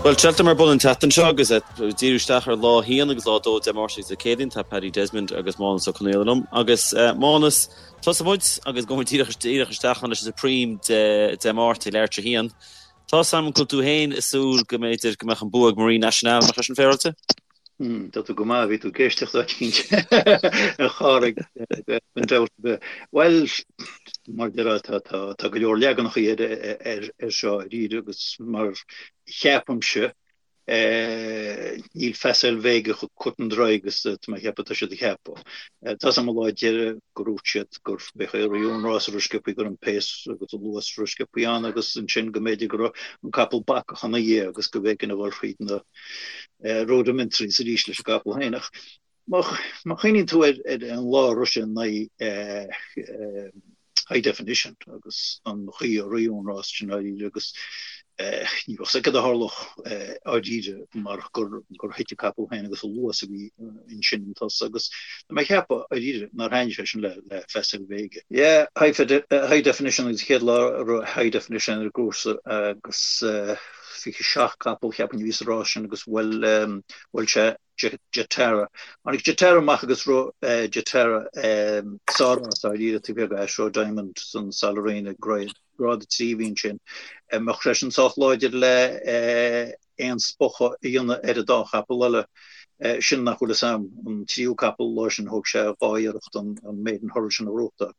Bhuel, Cheltenham ar bun an tseachtain seo agus ag díriú isteach ar lá a haon agus lá a dó Dé Máirt agus Dé Céadaoin tá Paddy Desmond agus Mánas Ó Conaola liom. Agus Mánas, tosóidh muid agus gabhfaidh muid díreach díreach isteach ann leis an Supreme Dé Dé Máirt ag leathuair tar éis a haon. Tá 's a'm go bhfuil tú féin ag súil go mb'fhéidir go mbeadh an bua ag Marine Nationale, nach é sin féaráilte? Tá tú go maith, bhí tú ag éisteacht áit eicínt a Chárthaigh, gan dabht ar bith. Bhuel, mar a déarfá, tá go leor leaganacha ar seo dáiríre agus mar cheapaimse, níl Facile Vega chomh cut and dry agus tá mé a cheapadh tá siad a cheapadh. Tá 's a'm an lá deiridh gur dhúirt siad gur b'é a raibh an rás a raibh sciobthaí go raibh an pace agus an luas a raibh sciobthaí ann agus ansin go mb'fhéidir go raibh an capall bacach ina dhiaidh agus go mb'éigean a dhul thríd na rudimentaries arís leis an gcapall féin. Ach má chuimhníonn tú ar an lá a rith sé in aghaidh High Definition agus an chaoi a ritheadh an rás sin dáiríre agus ní bheadh 's aige cad a tharlódh dáiríre marach gur thit an capall féin agus an luas a bhí ansin an tusa agus tá mé ag ceapadh dáiríre nár thaitnigh sé sin le Facile Vega. Yeah, High Definition agus an chéad lá a raibh High Definition ar an gcúrsa agus 27 capall cheapfainn a bhí sa rás sin agus bhuail bhuail sé Jetara. Tháinig Jetara amach agus rith Jetara sár-rás dáiríre taobh thiar de Ashroe Diamond san Sal Arena grád 3 a bhí ansin. Mbeadh sé sin sách láidir le aon spochadh a dhéanamh ar an dá chapall eile sin nach bhfuil fhios a'm. An tríú capall lá sin thóg sé dhá iarracht an Maiden Hurdle sin a ghnóthachtáil.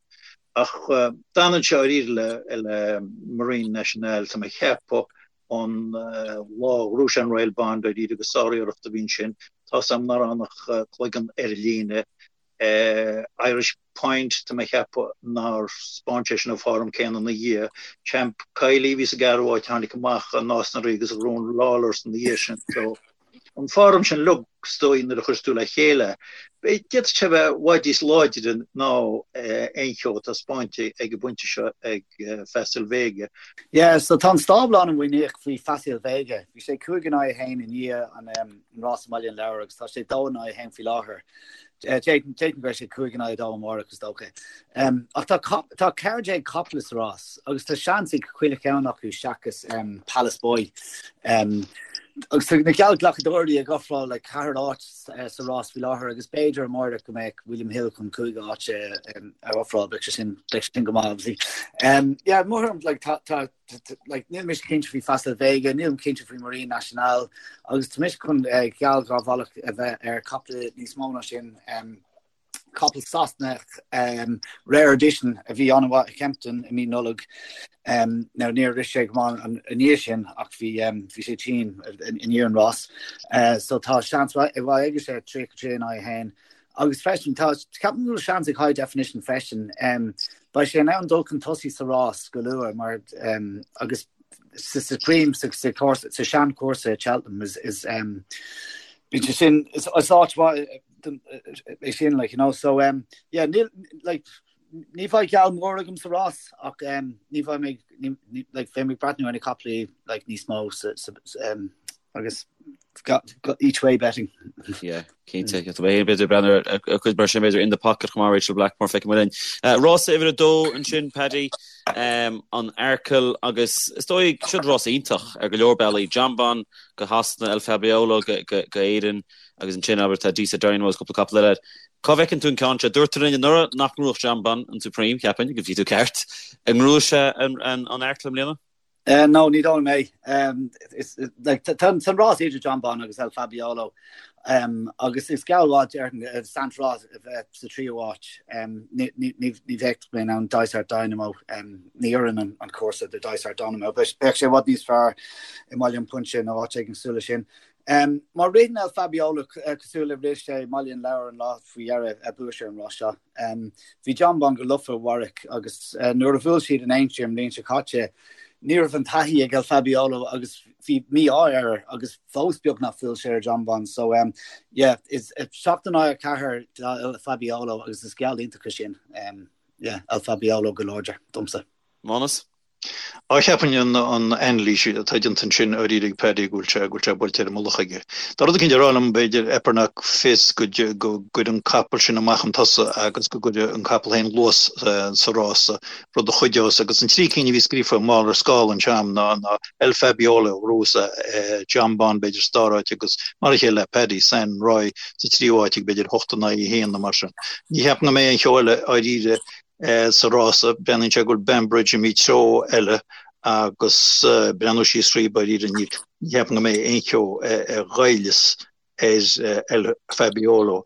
Ach d'fhanann sé dáiríre le Marine Nationale, tá mé ag ceapadh, an lá a ghnóthaigh sé an Royal Bond dáiríre agus sáriarracht a bhí ansin. Tá 's a'm nár fhan ach cloigeann ar an líne. Irish Point, tá mé ag ceapadh nár 'speáin sé sin an form céanna ina dhiaidh. Champ Kiely a bhí sa gceathrú háit, tháinig amach i Nás na Rí agus ghnóthaigh an Lawlor's ina dhiaidh sin. So. an form sin uilig, is dóigh, nuair a chuireas tú le chéile, d'fhéadfadh sé a bheith i bhfad níos láidre ná aon cheo atá spáinte ag an bpointe seo ag Facile Vega. Yeah, so tá an stábla an-mhuiníneach faoi Facile Vega. Bhí sé 5 in aghaidh 1 i ndiaidh an rás i mBaile an Lobhair agus tá sé 2 in aghaidh 1 faoi láthair. D'fhéadfainn go mbeidh sé 5 in aghaidh 2 amárach is dócha. Ach tá tá 14 capall sa rás agus tá seans ag chuile cheann acu seachas Palace Boy. Agus tá na geallghlacadóirí ag ofráil le ceathair áit sa rás faoi láthair agus b'fhéidir amárach go mbeadh William Hill chun cúig áit a ofráil, beidh sé sin beidh sé sin go maith obviously. Yeah, mothaím like tá tá like, níl mise cinnte faoi Facile Vega, nílim cinnte faoi Marine Nationale, agus tá mise chun eh, geall dhá bhealach a bheith ar capall níos mó ná sin. Um, capall Sasanach um, Rare Edition a bhí an-mhaith i Kempton i mí Nollag. Um, now níor rith sé go maith an i ndiaidh sin ach bhí um, bhí sé tinn i ndiaidh an rás. Uh, so tá seans mhaith aige sé 33 in aghaidh 1. Agus freisin, tá, ceapaim go bhfuil seans ag High Definition freisin. Beidh sé in ann dul chun tosaigh sa rás go luath mar agus sa Supreme, sa sa seanchúrsa i Cheltenham is is bíonn sé sin is áit mhaith é sin like you know so um, yeah níl like ní bheidh geall mór agam sa rás ach um, ní bheidh mé like bheidh mé ag breathnú ar na caiple like níos mó sa, sa, um, agus each way betting. Yeah, cinnte. Tá mé féin b'fhéidir ag breathnú ar cuid mar sin b'fhéidir in the pocket chomh maith Rachel Blackmore feicfidh muid linn. Rás uimhir a dó ansin Paddy, an Arkle agus is dóigh siod rás iontach ar go leor bealaí. Jonbon go Shasana, El Fabiolo go Éirinn agus ansin abair tá Deeside Dynamo agus cúpla capall eile. Cá bhfeiceann tú an ceann seo? Dúirt tú linn anuraidh nach ngnóthódh Jonbon an Supreme, cheapfainn, agus bhí tú ceart. An ngnóthóidh sé an Arkle i mbliana? No, ní dóigh liom é. Tá an rás idir Jonbon agus El Fabiolo agus is geall mhaith déarfainn Saint Roi a bheith sa tríú háit. Ní bheadh mé in ann Dysart Dynamo, ní oireann an cúrsa do Dysart Dynamo. Bheadh sé i bhfad níos fearr i mBaile an Phúinse nó áit éigin cosúil leis sin. Má ritheann El Fabiolo cosúil le rith sé i mBaile an Lobhair an lá faoi dheireadh, buafaidh sé an rás seo. Bhí Jonbon go lofa i Warwick agus nuair a bhuail siad in Aintree an bhliain seo caite, ní raibh an taithí ag El Fabiolo agus bhí mí-ádh air agus fós beagnach bhuail sé ar Jonbon. So um, yeah, is 7 in aghaidh 4 do El Fabiolo agus is geall iontach é sin. Um, yeah, El Fabiolo go láidir domsa. Mánas? Á cheapfainn an anailís atá déanta ansin dáiríre ag Paddy go bhfuil sé go bhfuil sé buailte ar an mullach aige. Tá rud eicínt ag rá liom b'fhéidir Epernock Fizz go gcuirfidh an capall sin amach chun tosaigh agus go gcuirfidh an capall féin luas sa rása, rud a chuideos. Agus an trí cinn a bhí scríofa mall ar scála anseo a'm ná ná El Fabiolo a ghnóthós Jonbon b'fhéidir sa dara háit agus mar a chéile le Paddy San Roy sa tríú háit ag b'fhéidir 8 in aghaidh 1 nó mar sin. Ní cheapaim go mbeidh aon cheo eile dháiríre Sa rása, breathnaíonn sé go bhfuil Banbridge imithe treo eile agus breathnú síos thríob dáiríre ní cheapaim go mbeidh aon cheo a ghoillfeas ar El Fabiolo.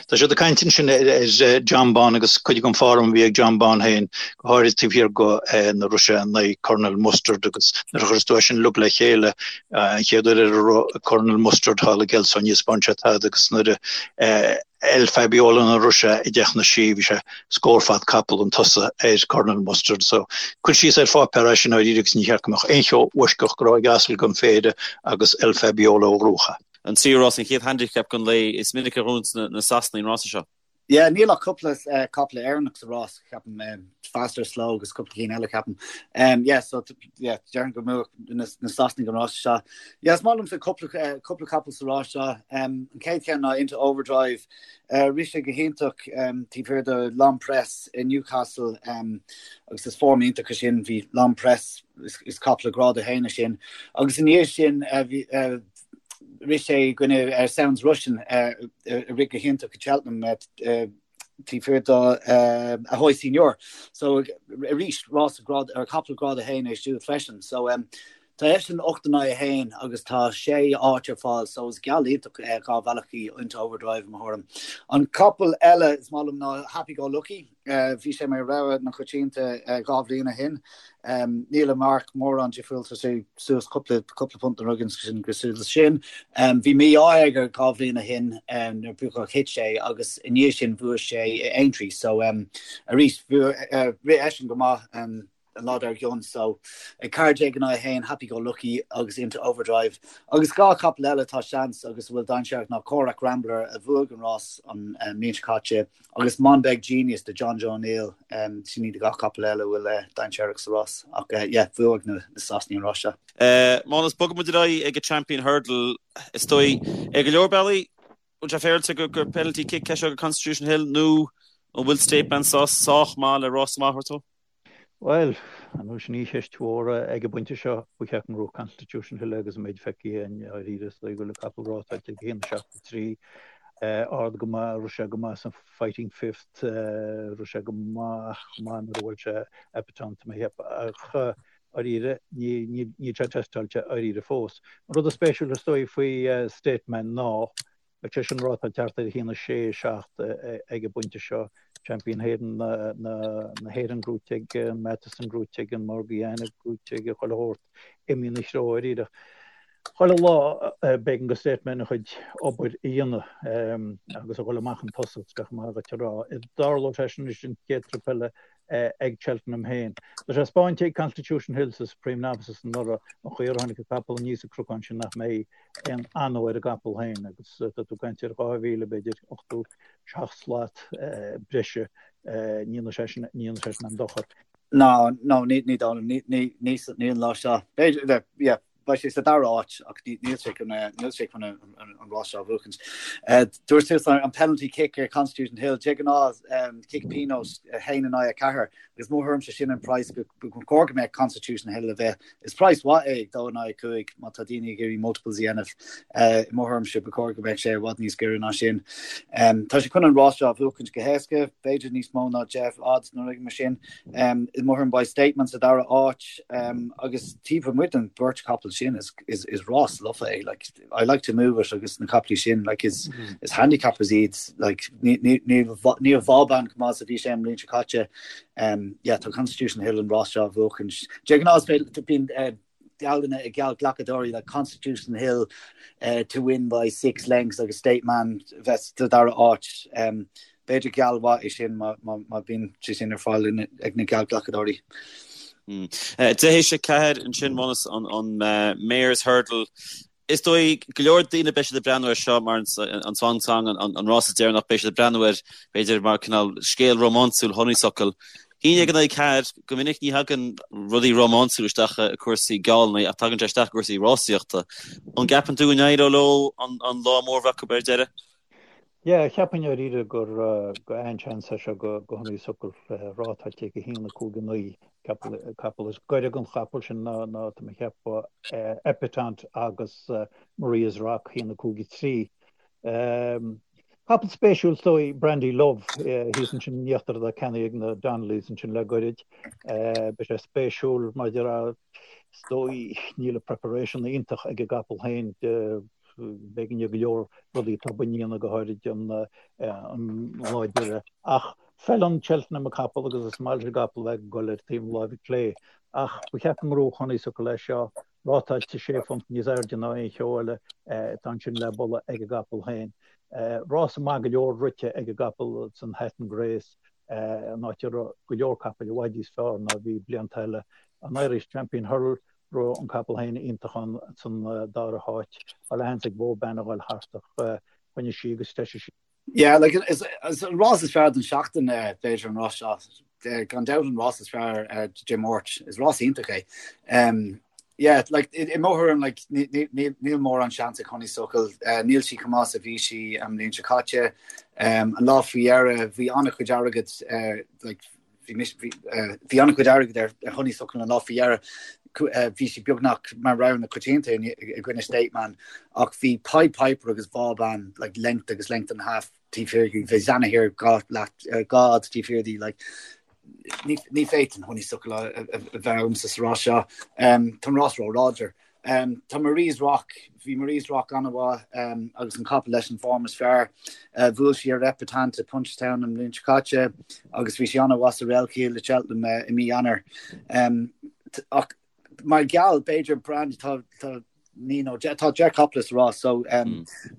Tá siad ag caint ansin ar Jonbon agus cuid den form a bhí ag Jonbon féin, go háirithe taobh thiar de nuair a rith sé in aghaidh Colonel Mustard agus nuair a chuireas tú é sin uilig le chéile, an chéad uair ar rith Colonel Mustard thall i gCelso ní thaispeáin sé tada agus nuair a El Fabiolo nuair a rith sé i dteach na Sí, bhí sé scór fad capall chun tosaigh ar Colonel Mustard. So, cuir síos ar pháipéar é sin dáiríre agus ní cheart go mbeadh aon cheo uaisceach go raibh ag asal den phéire agus El Fabiolo a ghnóthódh é. An tríú rás, an chéad handicap den lae, is minic a ghnóthaíonns na Sasanaigh an rása seo. Yeah, níl ach cúpla capall Éireannach sa rás, ceapaim, Fastorslow agus cúpla cinn eile, ceapaim. Yeah, so, yeah, déarfainn go mbuafadh na Sasanaigh an rás seo. Yeah, is maith liomsa cúpla, cúpla capall sa rás seo. An chéad cheann ná Into Overdrive. Rith sé go hiontach taobh thiar de L'Homme Presse i Newcastle agus is form iontach é sin. Bhí L'Homme Presse, is capall grád 1 é sin. Agus i ndiaidh sin bhí, rith sé i gcoinne Sounds Russian a rith go hiontach i Cheltenham taobh thiar do Ahoy Senor. So arís rás grád ar capall grád 1 é siúd freisin. So tá eisean 8 in aghaidh 1 agus tá sé áit ar fáil so is geall iontach dhá bhealach í Into Overdrive i mo thuairim. An capall eile is maith liom ná Happy Go Lucky. Bhí sé mar rogha na coitianta dhá bhliain ó shin. Níl a mharc mórán difriúil, tá sé suas cúpla cúpla punt nó rud éigin cosúil leis sin. Bhí mí-ádh aige dhá bhliain ó shin nuair a thit sé agus i ndiaidh sin bhuaigh sé i Aintree. So arís rith eisean go maith. an lá dár gcionn so ag 14 in aghaidh 1, Happy Go Lucky agus Into Overdrive. Agus dhá chapall eile atá seans agus a bhfuil dainséarach ná Corach Rambler a bhuaigh an rás an mbliain seo caite agus Monbeg Genius do Jonjo O'Neill. Sin iad dhá chapall eile a bhfuil dainséarach sa rás ach yeah bhuaigh na Sasanaigh an rás seo. Mánas, bogfaidh muid ar aghaidh ag an Champion Hurdle. Is dóigh, ar go leor bealaí, bhfuil sé féaráilte gur penalty kick é seo do Constitution Hill nó an bhfuil State Man sách maith le rás maith a thabhairt dó? Bhuel, ar ndóigh sin í an cheist mhór ag an bpointe seo, ba cheart go ngnóthódh Constitution Hill agus an méid feicthe againn dáiríre is dóigh go bhfuil an capall rátáilte ag 1.73, ard go maith, rith sé go maith san Fighting Fifth, rith sé go maith chomh maith nuair a bhuail sé Epatante tá mé ag ceapadh, ach dáiríre níl sé teisteáilte dáiríre fós. An rud is spéisiúil is dóigh faoi State Man ná Beidh sé sin rátáilte thart ar 1, 6, 7 ag an bpointe seo. Champion Hurdle na hÉireann gnóite aige, an Matheson gnóite aige, an Morgiana gnóite aige, chuile shórt imithe ina threo dáiríre. Chuile lá b'éigean do State Man a chuid obair a dhéanamh agus a dhul amach chun tosaigh, is maith dhuit a rá. Tarlóidh sé sin anois an chéad trip eile ag Cheltenham féin. Tá sé spáinte ag Constitution Hill sa Supreme Novices anuraidh an chaoi ar tháinig an capall aníos an cnocán sin nach mbeidh aon anó ar an gcapall féin agus tá tú ag caint ar 2,000 b'fhéidir 87 slat breise ní dhéanfaidh sé sin ní dhéanfaidh sé sin aon dochar. No, no, ní ní dóigh liom, ní ní ní ní an lá seo. B'fhéidir, yeah, beidh sé sa dara háit ach níl sé chun níl sé chun an rás seo a bhuachaint. Dúirt tú an penalty kick ar Constitution Hill, de ghnáth cic pionóis 1 in aghaidh 4 agus mo thuairimse sin an praghas go chóir go mbeadh Constitution Hill a bheith. Is praghas mhaith é 2 in aghaidh 5 má tá daoine ag iarraidh multiples a dhéanamh. I mo thuairimse ba chóir go mbeadh sé i bhfad níos giorra ná sin. Tá sé chun an rás seo a bhuachaint go héasca, b'fhéidir níos mó ná 10 odds nó rud mar sin. I mo thuairim beidh State Man sa dara háit agus taobh amuigh den bheirt chapall sin is is rás lofa é. Like, I like to move it agus na capaillí sin like, is, mm. is handicappers iad like, níl Vauban chomh maith is a bhí sé an bhliain seo caite. Um, yeah, tá Constitution Hill an rás seo a bhuachaint. De ghnáth bíonn uh, geallanna ag geallghlacadóirí like Constitution Hill uh, to win by six lengths agus State Man bheith sa dara áit. Um, b'fhéidir geall mhaith é sin má bhíonn sé sin ar fáil ag na geallghlacadóirí. 4 théis 4 ansin Mánas an Mares Hurdle. Is dóigh go leor daoine beidh siad ag breathnú air seo mar an swan song, an rás deireanach, beidh siad ag breathnú air b'fhéidir mar cineál scéal rómánsúil honeysuckle. 11 in aghaidh 4, go minic ní thagann rudaí rómánsúla isteach i cúrsaí geallanna ach tagann sé isteach i gcúrsaí rásaíochta. An gceapann tú go n-éireoidh leo an lá mór a bheith acu ar deireadh? Yeah, cheapfainn dáiríre gur go an-seans é seo go Honeysuckle rátáilte ag 1, 5, 9 capall. Is gaire don chapall sin ná tá mé ag ceapadh Epatante agus Maria's Rock 1, 5, 3. Capall spéisiúil is dóigh Brandy Love thíos ansin in íochtar atá ceannaithe ag na Donnellys ansin le goirid. Beidh sé spéisiúil maidir is dóigh níl an preparation iontach ag an gcapall féin b'éigean go leor rudaí atá á ndéanamh go háirid an lá deireadh. Ach feileann Cheltenham an capall agus is maith leis an gcapall bheith ag dul ar taobh na láimhe clé. Ach ba cheart go ngnóthódh Honeysuckle é seo. Rátáilte sé phunt níos airde ná aon cheo eile atá ansin le bualadh ag an gcapall féin. Rása maith go leor rite ag an gcapall san Hatton Grace, an áit a raibh go leor capaill i bhfad níos fearr ná a bhí blianta eile. An Irish Champion Hurdle, raibh an capall féin iontach ann san dara háit. Tá leathsheans ag Vauban a dhul thart ach choinnigh sí agus threisigh sí. Yeah, like, is, is an rás is fearr den seachtain eh, b'fhéidir an rás seo. Eh, gan dabht an rás is fearr eh, Dé Máirt. Is rás iontach é. Um, yeah, like, i, i mo thuairim, like, níl mórán seans ag Honeysuckle. Uh, níl sí chomh maith is a bhí sí an bhliain seo caite. Um, an lá faoi dheireadh, bhí an-chuid airgid uh, like, bhí an-chuid airgid ar Honeysuckle an lá faoi dheireadh. Bhí sí beagnach mar rogha na coitianta i gcoinne State Man ach bhí Pied Piper agus Vauban like length agus length and a half taobh thiar di. Bhí Zanahiyr 2 fhad taobh thiar di like ní fhéadfainn Honeysuckle a bheith agamsa sa rás seo. Tá an rás ró-láidir. Tá Marie's Rock, bhí Marie's Rock an-mhaith agus an capall leis an form is fearr. Bhuail sí ar Epatante i Punchestown an bhliain seo caite agus bhí sí an-mhaith sa Relkeel i Cheltenham i mí Eanáir. Ach mar gheall, b'fhéidir Brandy, tá tá ní nó tá 10 capall sa rás so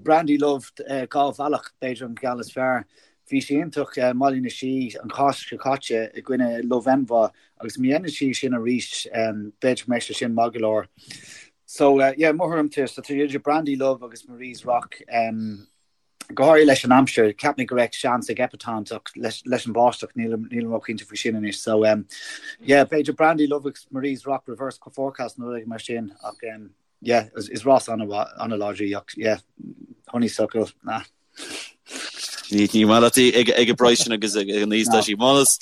Brandy Love 2 bhealach b'fhéidir an geall is fearr. Bhí sí iontach i mBaile na Sí an Cháisc seo caite i gcoinne Love Envoi agus má dhéanann sí sin arís b'fhéidir go mbeidh sé sin maith go leor. So yeah, mo thuairim tá idir Brandy Love agus Marie's Rock go háirithe leis an aimsir, cheap mé go raibh seans ag Epatante ach leis leis an bháisteach nílim nílim róchinnte faoi sin anois. So yeah, b'fhéidir Brandy Love agus Marie's Rock reverse forecast nó rud mar sin ach yeah, is rás an-láidir í ach yeah, Honeysuckle, nah. Ní maith leat í ag an bpraghas sin agus ag an aois atá sí. Mánas,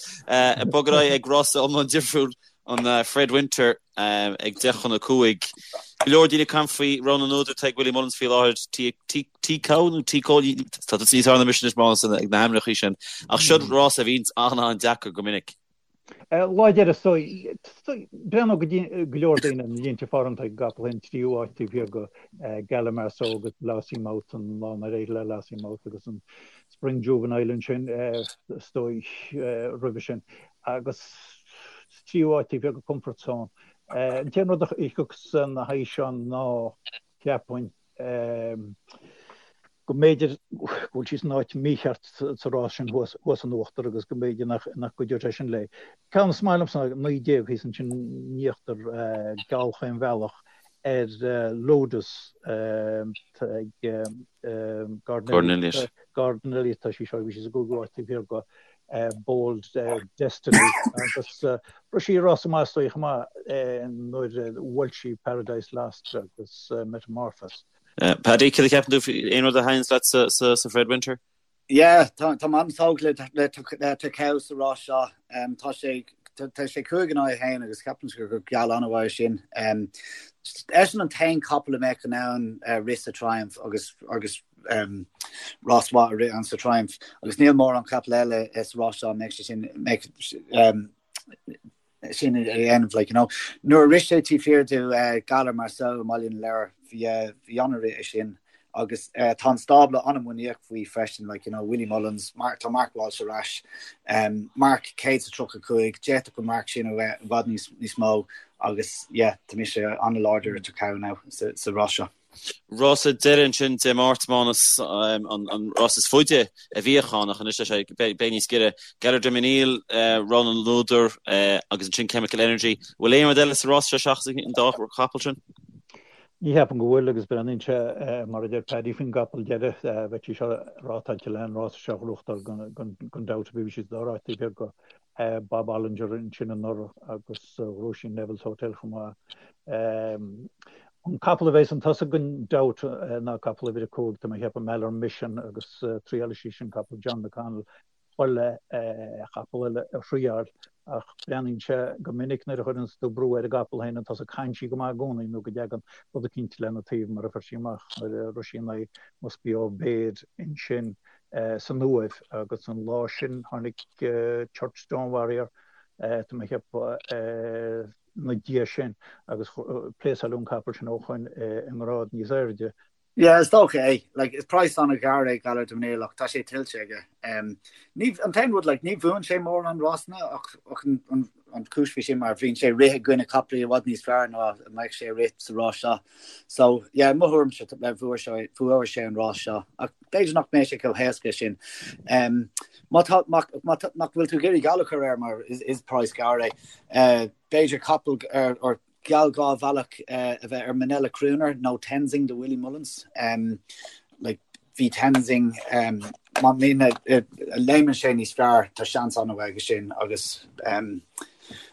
bog ar aghaidh ag rása iomlán difriúil an Fred Winter ag 10 chun 5. Go leor daoine ag caint faoi rogha na n-údar atá ag Willie Mullins faoi láthair, T-Cow nó T-Cow, tá tusa níos fearr ná mise anois Mánas ag na hainmneacha sin. Ach seo rás a bhíonns an-an-deacair go minic. Lá deireadh is dóigh, breathnódh go leor daoine ar na línte form atá ag an gcapall féin, tríú háit taobh thiar de Gala Marceau agus Lossiemouth an lá nár éirigh le Lossiemouth agus an Spring Juvenile ansin is dóigh roimhe sin agus tríú háit taobh thiar de Comfort Zone. An t-aon rud a thiocfas ina haghaidh seo ná cheapfainn go mb'fhéidir go bhfuil sí san áit mhícheart sa rás sin thuas in uachtar agus go mb'fhéidir nach gcuideodh sé sin léi. Ceann is maith liomsa ná 19 thíos ansin in íochtar geall chaon bhealach ar Lotus ag Gordon Elliott. Gordon Elliott tá sí seo, bhí sí sa gcúigiú háit taobh thiar de Bold Destiny agus rith sí rás maith is dóigh chomh maith nuair a bhuail sí Paradise Lost agus Metamorphose. Paddy, céard a cheapann tú faoi aon rud a thaitníonns leat sa Fred Winter? Yeah, tá mé an-tógtha le Tachau sa rás seo. Tá sé tá sé 5 in aghaidh 1 agus ceapaim gur geall an-mhaith é sin. Eisean an t-aon capall a mbeadh in ann rith sa Triumph agus agus rás mhaith a rith ann sa Triumph agus níl mórán capall eile sa rás seo a mbeadh sé sin mbeadh sin a dhéanamh like, you know. Nuair a rith sé taobh thiar de Galar Marceau i mBaile na Lobhar bhí bhí an-rith é sin agus tá an stábla an-mhuiníneach faoi freisin like, you know, Willie Mullins, Mark, tá Mark Walsh ar ais um, marc 135 d'fhéadfadh an marc sin a bheith i bhfad níos, níos mó agus yeah, tá mise an-láidir ar Tachau now sa, sa rás seo. Rása deiridh ansin Dé Máirt, Mánas, an rás is faide a bhíodh ann ach anois tá sé beidh níos giorra. Gaillard Du Mesnil, rogha na n-údar agus ansin Chemical Energy. Bhfuil aon rud eile sa rás seo seachas an dá chapall sin? Ní cheapaim go bhfuil agus breathnaíonn sé mar a deir Paddy faoin gcapall deiridh, bheadh sí seo rátáilte le an rás seo a ghnóthachtáil gan dabht bhí sí sa dara háit taobh thiar de. Bob Olinger ansin anuraidh agus ghnóthaigh sí Neville's Hotel chomh maith. An capall a bheas chun tosaigh gan dabht ná capall uimhir 5, tá mé ag ceapadh Maller Mission agus triálfaidh sí sin capall John McConnell chuile chapall eile a thriáil ach breathnaíonn sé go minic nuair a chuireanns tú brú ar an gcapall féin chun tosaigh caitheann sí go maith i gcónaí nó go dtagann rud eicínt lena taobh mar a fuair sí amach nuair a rith sí in aghaidh Must Be Obeyed ansin san Uaimh agus an lá sin tháinig Churchstone Warrior tá mé ag ceapadh ina diaidh sin agus pléasáileadh an capall sin ó shoin i ngrád níos airde. Yeah, is dócha é. Like, is praghas an-ghar é Galar de Manil ach tá sé tuillte aige. Um, ní, an t-aon rud, like, ní bhuann sé mórán rásanna ach, ach an, an, an chúis faoi sin mar bhíonn sé ag rith i gcoinne capaillí i bhfad níos fearr ná a mbeadh sé ag rith sa rás seo. So, yeah, mo thuairimse bhuaigh sé, bhuaigh sé an rás seo. Ach b'fhéidir nach mbeidh sé chomh héasca sin. Um, má tá, má, má tá, nach bhfuil tú ag iarraidh geall a chur air mar is, is praghas gearr é, uh, b'fhéidir capall ar, ar geall 2 bhealach a bheith ar Minella Crooner nó Tenzing do Willie Mullins. Like, bhí Tenzing, má léimeann sé níos fearr, tá seans an-mhaith aige sin agus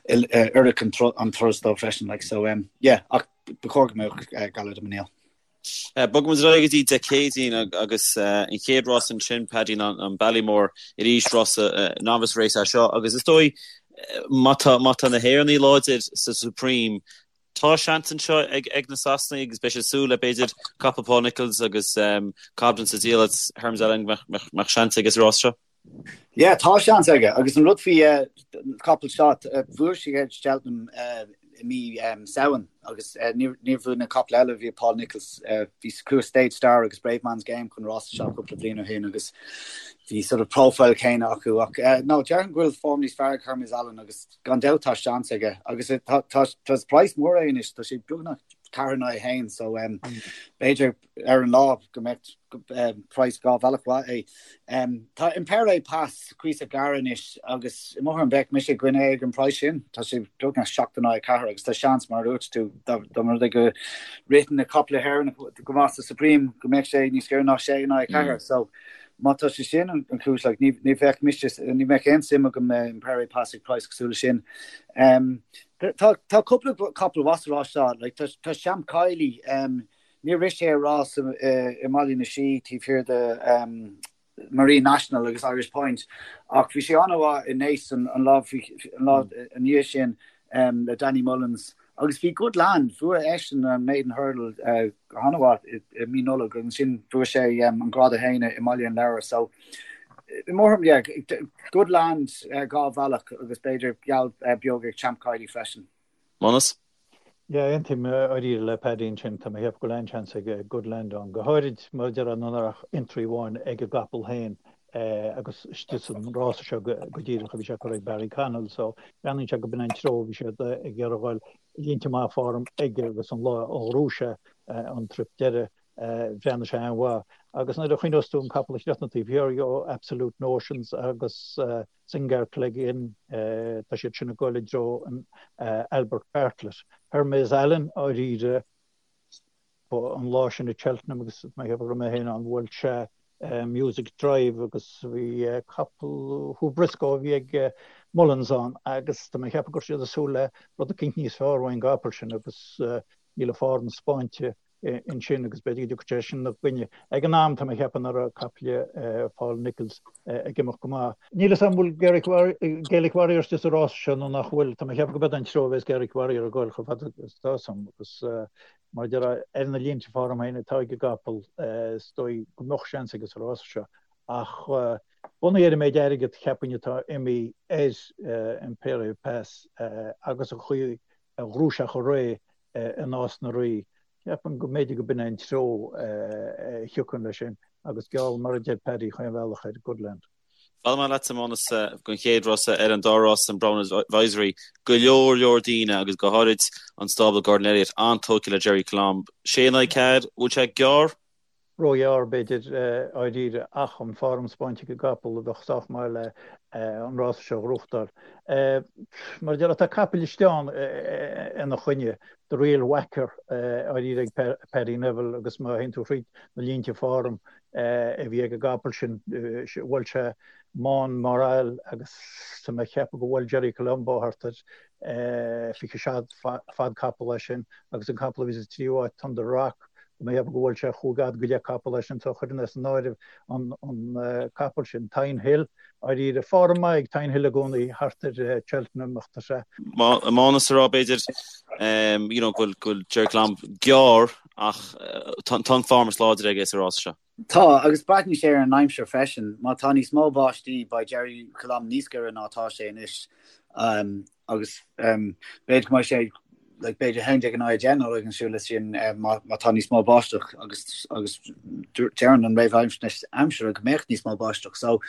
oirfidh an turas dó freisin. Like, so, yeah, ach ba chóir go mbeadh Galar de Mesnil. Bogfaidh muid ar aghaidh go dtí Dé Céadaoin agus an chéad rás ansin, Paddy, ná an Ballymore arís, rás novice race é seo agus is dóigh má tá má tá na hÉireannaigh láidir sa Supreme, tá seans anseo ag ag na Sasanaigh agus beidh siad ag súil le b'fhéidir capall Paul Nicholls agus Cobden sa diallait Hermes Allen go mbeadh seans aige sa rás seo. Yeah, tá seans aige agus an rud faoi capall seo, bhuaigh sé Cheltenham i mí Samhain agus níor bhuaigh na caiple eile a bhí ag Paul Nicholls, bhí chuaigh Stage Star agus Bravemansgame chun rása seo cúpla bliain ó shin agus bhí sort of profile céanna acu ach no, déarfainn go bhfuil form níos fearr ag Hermes Allen agus gan dabht tá seans aige agus tá tá praghas mór é anois, tá sé beagnach 4 in aghaidh 1 so b'fhéidir ar an lá go mbeadh praghas 2 bhealach mhaith é. Tá Impaire Et Passe cuíosach gar anois agus i mo thuairim bheadh mise i gcoinne é ag an praghas sin. Tá sé beagnach 7 in aghaidh 4 agus tá seans, mar a dúirt tú, dá mba rud é go ritheann na caiple Éireannacha go maith sa Supreme go mbeadh sé níos giorra ná 6 in aghaidh 4. So má tá sé sin an chúis, like, ní ní bheadh mise, ní bheadh aon suim agam in Impaire Et Passe ag praghas cosúil leis sin. Tá tá cúpla capall mhaith sa rás seo, like, tá tá Champ Kiely, Níor rith sé rás i mBaile na Sí taobh thiar de Marine National agus Irish Point ach bhí sé an-mhaith i Naas an lá ina dhiaidh sin le Danny Mullins agus bhí Good Land, bhuaigh eisean an Maiden Hurdle go han-mhaith i mí Nollag agus ansin bhuaigh sé an Grád 1 i mBaile an Lobhair so i mo thuairim yeah, Good Land 2 bhealach agus b'fhéidir geall beag ag Champ Kiely freisin. Mánas? Yeah, aontaím dáiríre le Paddy ansin. Tá mé ag ceapadh go bhfuil an-seans ag Good Land ann, go háirid mar a déarfá nach raibh ach entry amháin ag an gcapall féin agus istigh san rása seo go díreach a bhí sé curtha ag Barry Connell so breathnaíonn sé go b'in an treo a bhí siad ag iarraidh a dhul. Línte maith form aige agus an lá a ghnóthaigh sé an trip deiridh bhreathnaigh sé an-mhaith. Agus nuair a chuimhneos tú an capall a chríochnaigh taobh thiar dhe, Absolute Notions agus Singear Clegane, tá siad sin ag dul i dtreo an Albert Bartlett. Hermes Allen, dáiríre, an lá sin i Cheltenham agus mé ag ceapadh go raibh mé féin ann, bhuail sé Music Drive agus bhí capall Hugh Briscoe a bhí ag Mullins ann agus tá mé ag ceapadh go raibh siad ag súil le rud eicínt níos fearr ón gcapall sin agus níl a form spáinte ansin agus b'fhéidir go dtiocfaidh sé sin ina gcoinne. Ag an am, tá mé ag ceapadh nach raibh caiple Paul Nicholls ag imeacht go maith. Níl fhios agam an bhfuil Gaelic Warrior istigh sa rás seo nó nach bhfuil. Tá mé ag ceapadh go b'ead an treo a bheas Gaelic Warrior ag dul chomh fada is atá fhios agam agus mar a déarfá ar na línte form féin atá ag an gcapall is dóigh go mbeadh seans aige sa rás seo ach bunaithe ar an méid airgead cheapfainn atá imithe ar Impaire Et Passe agus an chaoi a ghnóthaigh sé chomh réidh i Nás na Rí. Ceapaim go mb'fhéidir go b'in é an treo a thiocfainn leis sin agus geall, mar a deir Paddy, chaon bhealach ar Goodland. Fágfaidh mé leatsa, Mánas, don chéad rása ar an dá rás an Brown Advisory. Go leor leor daoine agus go háirid an stábla Gordon Elliott an-tógtha le Gerri Colombe. Sé in aghaidh 4, bhfuil sé gearr? Róghearr, b'fhéidir, dháiríre, ach an form spáinte ag an gcapall a bheadh sách maith le an rása seo a ghnóthachtáil. Mar a déarfá, tá capaill istigh ann ina choinne, The Real Whacker, dháiríre ag Paddy Neville agus má théann tú thríd na línte form a bhí ag an gcapall sin, bhuail sé Mon Moral agus tá mé ag ceapadh go bhuail Gerri Colombe thart ar 27 fad capall é sin agus an capall a bhí sa tríú háit, Thunder Rock, Tá mé ag ceapadh go bhuail sé chúig fhad go leith capall é sin so chuirfinn as an áireamh an capall sin. Thyme Hill, dháiríre, form maith ag Thyme Hill i gcónaí thart ar Cheltenham ach tá sé. Mánas a rá b'fhéidir you know go bhfuil Gerri Colombe gearr ach tá an form is láidre aige sa rás seo. Tá, agus breathnaíonn sé ar an aimsir freisin. Má tá níos mó báistí, beidh Gerri Colombe níos giorra ná atá sé anois. Agus b'fhéidir go mbeidh sé like, b'fhéidir 11 in aghaidh 10 nó rud cosúil leis sin má tá níos mó báisteach agus agus deireann an réamhaisnéis aimsire go mbeadh níos mó báisteach. So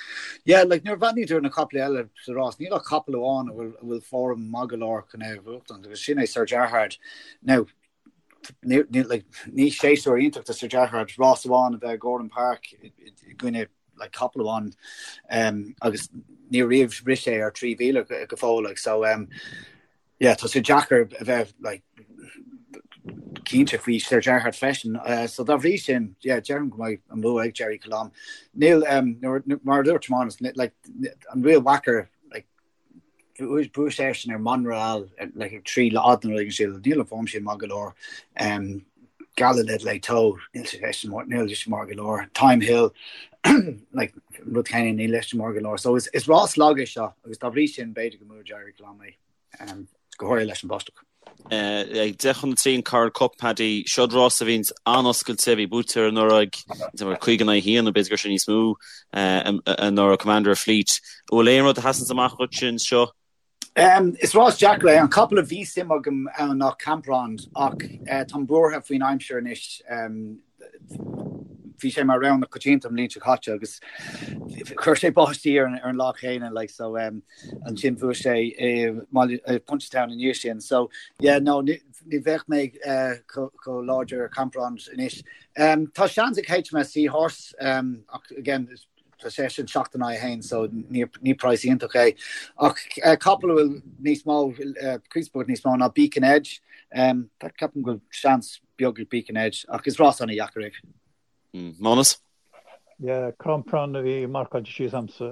yeah, like, nuair a bhreathnaíonn tú ar na caiple eile sa rás, níl ach capall amháin a bhfuil a bhfuil form maith go leor chun é a bhuachtaint agus sin é Sir Gerhard. Now, ní, ní, like, ní séasúr iontach do Sir Gerhard rás amháin a bheith i Gowran Park i gcoinne like, capall amháin um, agus ní riamh rith sé ar 3,000 go, go fóill like, so um, yeah, tá sé deacair a bheith like, cinnte faoi Sir Gerhard freisin. Uh, so dá bhrí sin, yeah, deirim go mbeidh an bua ag Gerri Colombe. Níl um, mar a dúirt Mánas, like, an Real Whacker Bhuaigh seisean ar Monreal like ag 3 fhad nó rud éigin níl an form sin maith go leor. Um, Gala de Leytau, níl sé níl sé maith go leor. Thyme Hill, like, rud céanna níl sé maith go leor. So is, is rás lag é seo agus dá bhrí sin b'fhéidir go mbuafaidh Gerri Colombe é um, go háirithe leis an bháisteach. Ag 10 chun 3 an Coral Cup, Paddy, seod rás a bhíonns an-oscailte, bhí buaite anuraidh ag 5 in aghaidh 1 nó b'fhéidir go raibh sé níos mó anuraidh, Commander of Fleet. An bhfuil aon rud a sheasanns amach dhuit anseo? Is rás deacair é. An capall a bhí suim agam ann ná Camprond ach táim buartha faoin aimsir anois. Bhí sé mar rogha na coitianta an bhliain seo caite agus chuir sé báistí ar an lá chéanna like so ansin bhuaigh sé i Punchestown i ndiaidh sin. So yeah no ní bheadh mé chomh láidir ar Camprond anois. Tá seans ag HMS Seahorse ach again tá sé sin 7 in aghaidh 1 so ní praghas iontach é. Ach capall a bhfuil níos mó cuspóid níos mó ná Beacon Edge. Ceapaim go bhfuil seans beag ag Beacon Edge ach is rás an-dheacair é. Mánas? Yeah, Camprond a bhí marcáilte síos a'msa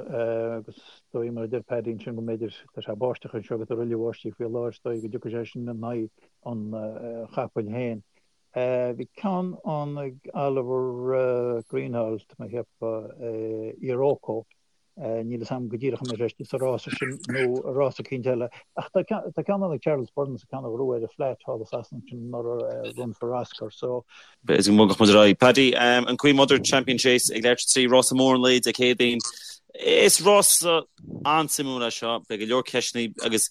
agus is dóigh mar a deir Paddy ansin go mb'fhéidir tá sé báisteach anseo agus tá roilleadh báistí faoi láthair is dóigh go dtiocfaidh sé sin in aghaidh an chapaill féin. Bhí ceann ann ag Oliver Greenhalgh, tá mé ag ceapadh, Iroko. Níl fhios a'm go díreach an mbeidh sé istigh sa rása sin nó i rás eicínt eile. Ach tá ceann ann ag Charles Byrnes, ceann a ghnóthaigh ar an Flat thall i Sasana ansin anuraidh, Run for Oscar. So. B'fhéidir go mbogfadh muid ar aghaidh. Paddy, an Queen Mother Champion Chase ag leathuair tar éis 3, rása mór an lae Dé Céadaoin. Is rása an-suimiúil é seo. Beidh go leor ceisteanna agus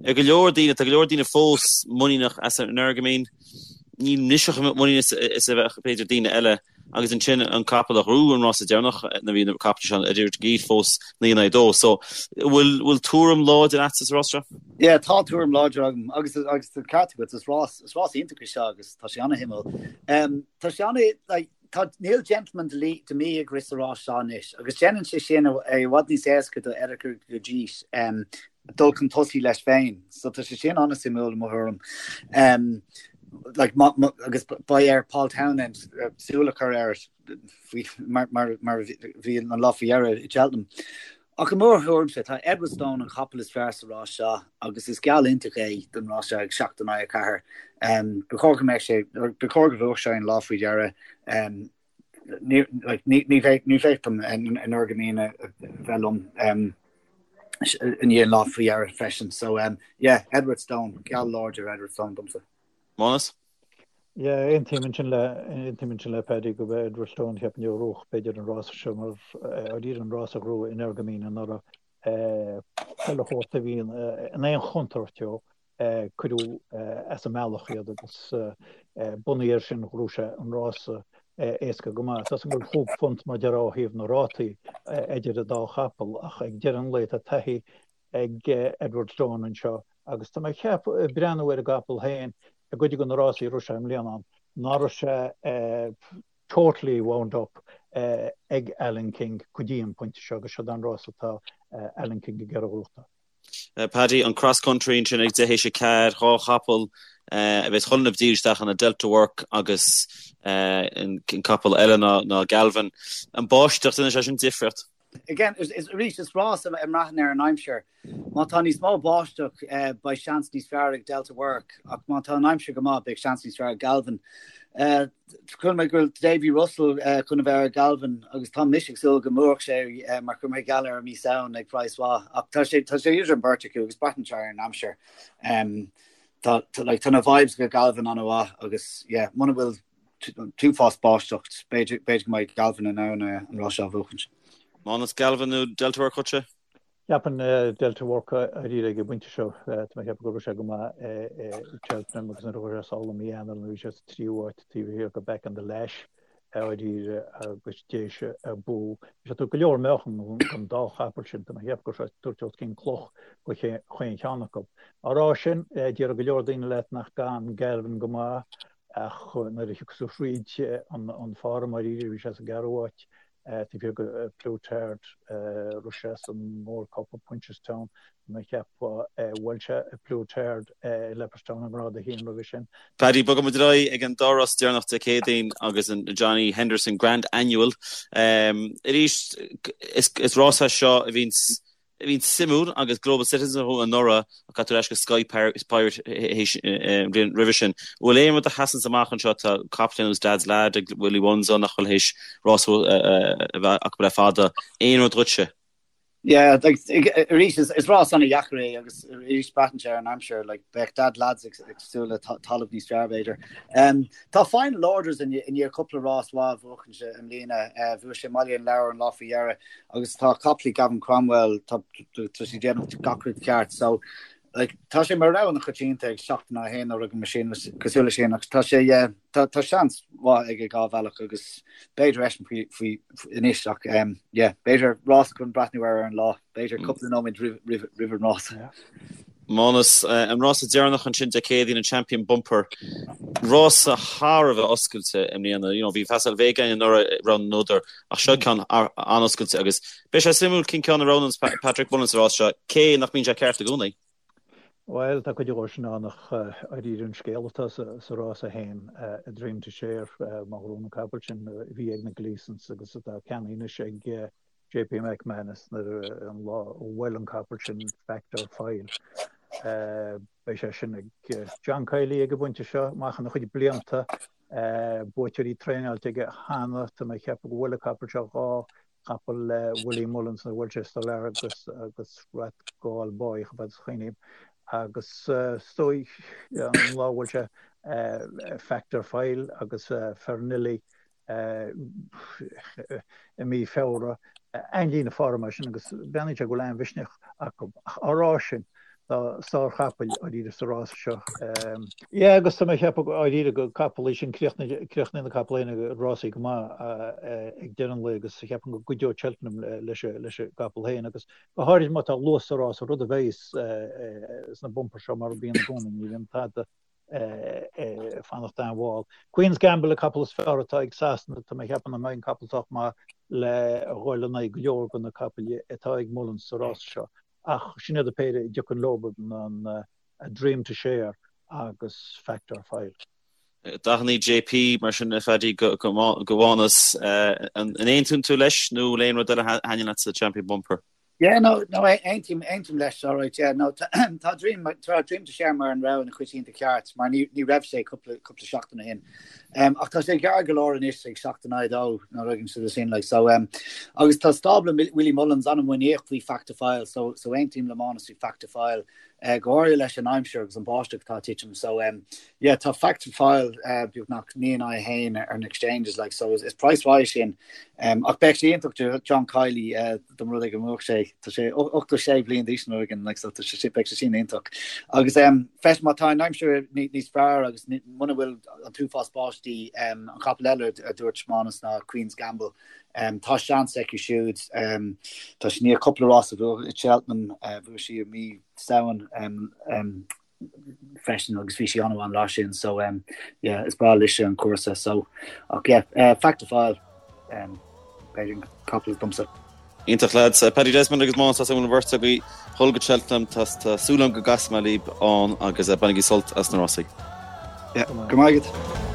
ag go leor daoine, tá go leor daoine fós muiníneach as Energumene. Níl mise chomh muiníneach is a bheadh b'fhéidir daoine eile. Agus ansin an capall a ghnóthaigh an rása deireanach nuair a bhí na caiple seo idir iad fós 9 in aghaidh 2. So, bhfuil bhfuil tuairim láidir agatsa sa rás seo? Yeah, tá tuairim láidir agam agus agus tá ceart agat, is rás is rás iontach é seo agus tá sé an-shuimiúil. Um, tá sé an like, tá níl Gentleman De Mee ag rith sa rás seo anois agus déanann sé sin é i bhfad níos éasca do Eric Gurgit um, dul chun tosaigh leis féin. So tá sé sin an-suimiúil i mo thuairim. Um, like, ma, ma, agus beidh ar Paul Townend uh, súil a chur air faoi, mar, mar, mar bhí an lá faoi dheireadh i Cheltenham. Ach i mo thuairimse tá Edwardstone an capall is fearr sa rás seo agus is geall iontach é don rás seo ag 7 in aghaidh 4. Um, ba chóir go mbeadh sé ba chóir go bhuafadh sé an lá faoi dheireadh. Um, ní bheadh dom Energumene a bheith liom i ndiaidh an lá faoi dheireadh freisin. So yeah, Edwardstone, geall láidir Edwardstone domsa. Mánas? Yeah, aontaím ansin le aontaím ansin le Paddy gurb é Edwardstone cheapfainn a ghnóthódh b'fhéidir an rása seo mar dáiríre an rása a ghnóthaigh Energumene anuraidh chuile shórt a bhí in aon chontúirt ó cuireadh as an mbealach iad agus bunaithe air sin ghnóthaigh sé an rása éasca go maith. Tá 's agam go bhfuil chúig phunt mar déarfá ó thaobh na rátaí idir an dá chapall ach ag deireadh an lae tá taithí ag Edwardstone anseo agus tá mé ag ceapadh ag breathnú ar an gcapall féin i gcuid de na rásaí a raibh sé i mbliana ann ná raibh sé. totally wound up ag Alan King go dtí an pointe seo agus seo an rás atá Alan King ag iarraidh a ghnóthachtáil. Paddy, an cross country ansin ag 4:20, dhá chapall a bheas chun a bheith isteach ann Delta Work agus an capall eile ná Galvin. An báisteach, déanann sé sin difríocht? Again, arís, is rás a mbraitheann ar an aimsir. Má tá níos mó báisteach, beidh seans níos fearr ag Delta Work, ach má tá an aimsir go maith, beidh seans níos fearr ag Galvin. Chuala mé go bhfuil Davy Russell chun a bheith ar Galvin agus tá mise ag súil go mbuafadh sé mar chuir mé geall air i mí Samhain ag praghas mhaith ach tá sé tá sé idir an beirt acu agus braitheann sé ar an aimsir. Tá like tá na vibes go Galvin an-mhaith agus yeah muna bhfuil t-uafás báisteach b'fhéidir b'fhéidir go mbeidh Galvin in ann an rás seo a bhuachaint. Mánas Galvin nó Delta Work dhuitse? Cheapfainn Delta Work dáiríre ag an bpointe seo. Tá mé ag ceapadh go raibh sé go maith i Cheltenham agus nuair a chuaigh sé sall i mí Eanáir nuair a bhí sé sa tríú háit taobh thiar de Back on the Lash dáiríre agus d'éis a bua. Bhí sé ag tabhairt go leor meáchan don dá chapall sin. Tá mé ag ceapadh go raibh sé ag tabhairt os cionn cloch do chaon cheann acu. Á rá sin, déarfaidh go leor daoine leat nach gabhann Galvin go maith ach nuair a thiocfas tú thríd an form dáiríre bhí sé sa gceathrú háit Taobh thiar de Plus Tard, rith sé sa Gold Cup i Punchestown, mé ag ceapadh, bhuail sé Plus Tard i Leopardstown i ngrád a haon roimhe sin. Paddy, bogfaidh muid ar aghaidh ag an dá rás deireanach Dé Céadaoin agus an Johnny Henderson Grand Annual. Arís, is rás é seo a bhíonns a bhíonn suimiúil agus Global Citizen a bhuaigh anuraidh ach caithfidh tú ar ais go Sky Pirate an bhliain roimhe sin. An bhfuil aon rud a sheasanns amach anseo? Tá capall ar nós Dad's Lad ag Willie Mullins ann nach bhfuil théis rás a bheith acu le fada. Aon rud dhuitse? Yeah, like, arís is rás an-dheacair é agus arís braitheann sé ar an aimsir, like, bheadh Dad's Lad ag súil le talamh níos fearr b'fhéidir. Um, tá Final Orders i ndiaidh cúpla rás mhaith a bhuachaint i mbliana. Uh, bhuaigh sé i mBaile an Lobhair an lá faoi dheireadh. Agus tá capaillí Gavin Cromwell, tá sé ag déanamh gach rud ceart. So, like, tá sé mar rogha an-choitianta ag 7-1 nó rud mar sin, cosúil leis sin, ach tá sé, yeah, tá, tá seans mhaith aige dhá bhealach agus b'fhéidir eisean faoi, faoi, anois ach, um, yeah, b'fhéidir rás chun breathnú air ar an lá, b'fhéidir cúpla nóiméad roimh, roimh, roimh an rás. Yeah. Mánas, an rása deireanach ansin Dé Céadaoin, an Champion Bumper, rása thar a bheith oscailte i mbliana. You know, bhí Facile Vega againn anuraidh rogha na n-údar, ach seo ceann an-oscailte agus beidh sé suimiúil cén ceann a roghnóidh Patrick Mullins sa rás seo, cé nach mbíonn sé ceart i gcónaí. Bhuel, tá cuid dhó sin ann ach dáiríre an scéal atá sa rás é féin, A Dream to Share, má ghnóthaíonn an capall sin a bhí ag na Gleesons agus atá ceannaithe anois ag JP McManus nuair an lá a bhuail an capall sin Fact Or File. Beidh sé sin ag John Kiely ag an bpointe seo, amach ina chuid blianta. Buaiteoirí traenáilte aige cheana. Tá mé ag ceapadh go bhuail an capall seo dhá chapall le Willie Mullins nuair a bhuail sé Solar agus agus Rathgall Boy chomh fada is a chuimhním. Agus is dóigh an lá a bhuail sé Fact Or File agus Fairnilee i mí Feabhra, an-líne form é sin agus breathnaíonn sé go bhfuil an-mhisneach acu. Ach á rá sin, tá sárchapaill dáiríre sa rás seo. Yeah agus tá mé ag ceapadh dáiríre gur capall é sin, críochnaíonn na capaill féin rásaí go maith ag deireadh an lae agus cheapfainn go gcuideoidh Cheltenham leis an gcapall féin agus go háirid má tá luas sa rás, rud a bheidh sna bumpers seo mar a bhíonn i gcónaí, ní bhíonn tada ag fanacht an-mhall. Queen's Gamble an capall is fearr atá ag Sasana, tá mé ag ceapadh nach mbeidh an capall sách maith le dhul in aghaidh go leor de na capaill atá ag Mullins sa rás seo ach sin iad an péire a dtiocfainn leo, an A Dream to Share agus Fact or File. Dathannaí JP mar sin a Phaddy do Mhánas. An aontaíonn tú leis nó bhfuil aon rud eile a thaitníonn leat sa Champion Bumper? Yeah, no, no, aontaím, aontaím leis, all right, yeah, no, tá Dream, tá Dream to Share mar an rogha an-choitianta ceart, mar ní, ní raibh sé cúpla, cúpla seachtain ó shin. Um, ach tá sé gearr go leor anois ag 7-2, nó rud éigin sin, like, so, um, agus tá stábla Willie Mullins an-mhuiníneach faoi Fact to File, so, so aontaím le Mánas faoi Fact to File, uh, go háirithe leis an aimsir agus an báisteach atá ag titim, so, um, yeah, tá Fact to File, uh, beagnach 9-1 ar na exchanges, like, so is, is price mhaith sin. Um, ach beidh sé iontach do John Kiely, uh, dá mba rud é go mbuafadh sé, tá sé 86 bliain d'aois nó rud éigin, like, so tá sé, beidh sé sin iontach. Agus um, freisin má tá an aimsir níos fearr agus muna bhfuil an t-uafás báistí, um, an capall eile a dúirt Mánas ná Queen's Gamble, um, tá seans aici siúd, um, tá sí i ndiaidh cúpla rás a bhuachan i Cheltenham, uh, bhuaigh sí i mí Samhain, um, um, freisin agus bhí sí an-mhaith an lá sin so um, yeah, is breá léise an cúrsa so ach yeah, uh, Fact to File um, b'fhéidir an capall domsa. Iontach lads. Paddy Desmond agus Mánas tá an bheirt agaibh ag dul go Cheltenham tá súil agam go gcasfaidh mé libh ann agus bainigí sult as na rásaí. Yeah, go maith agat.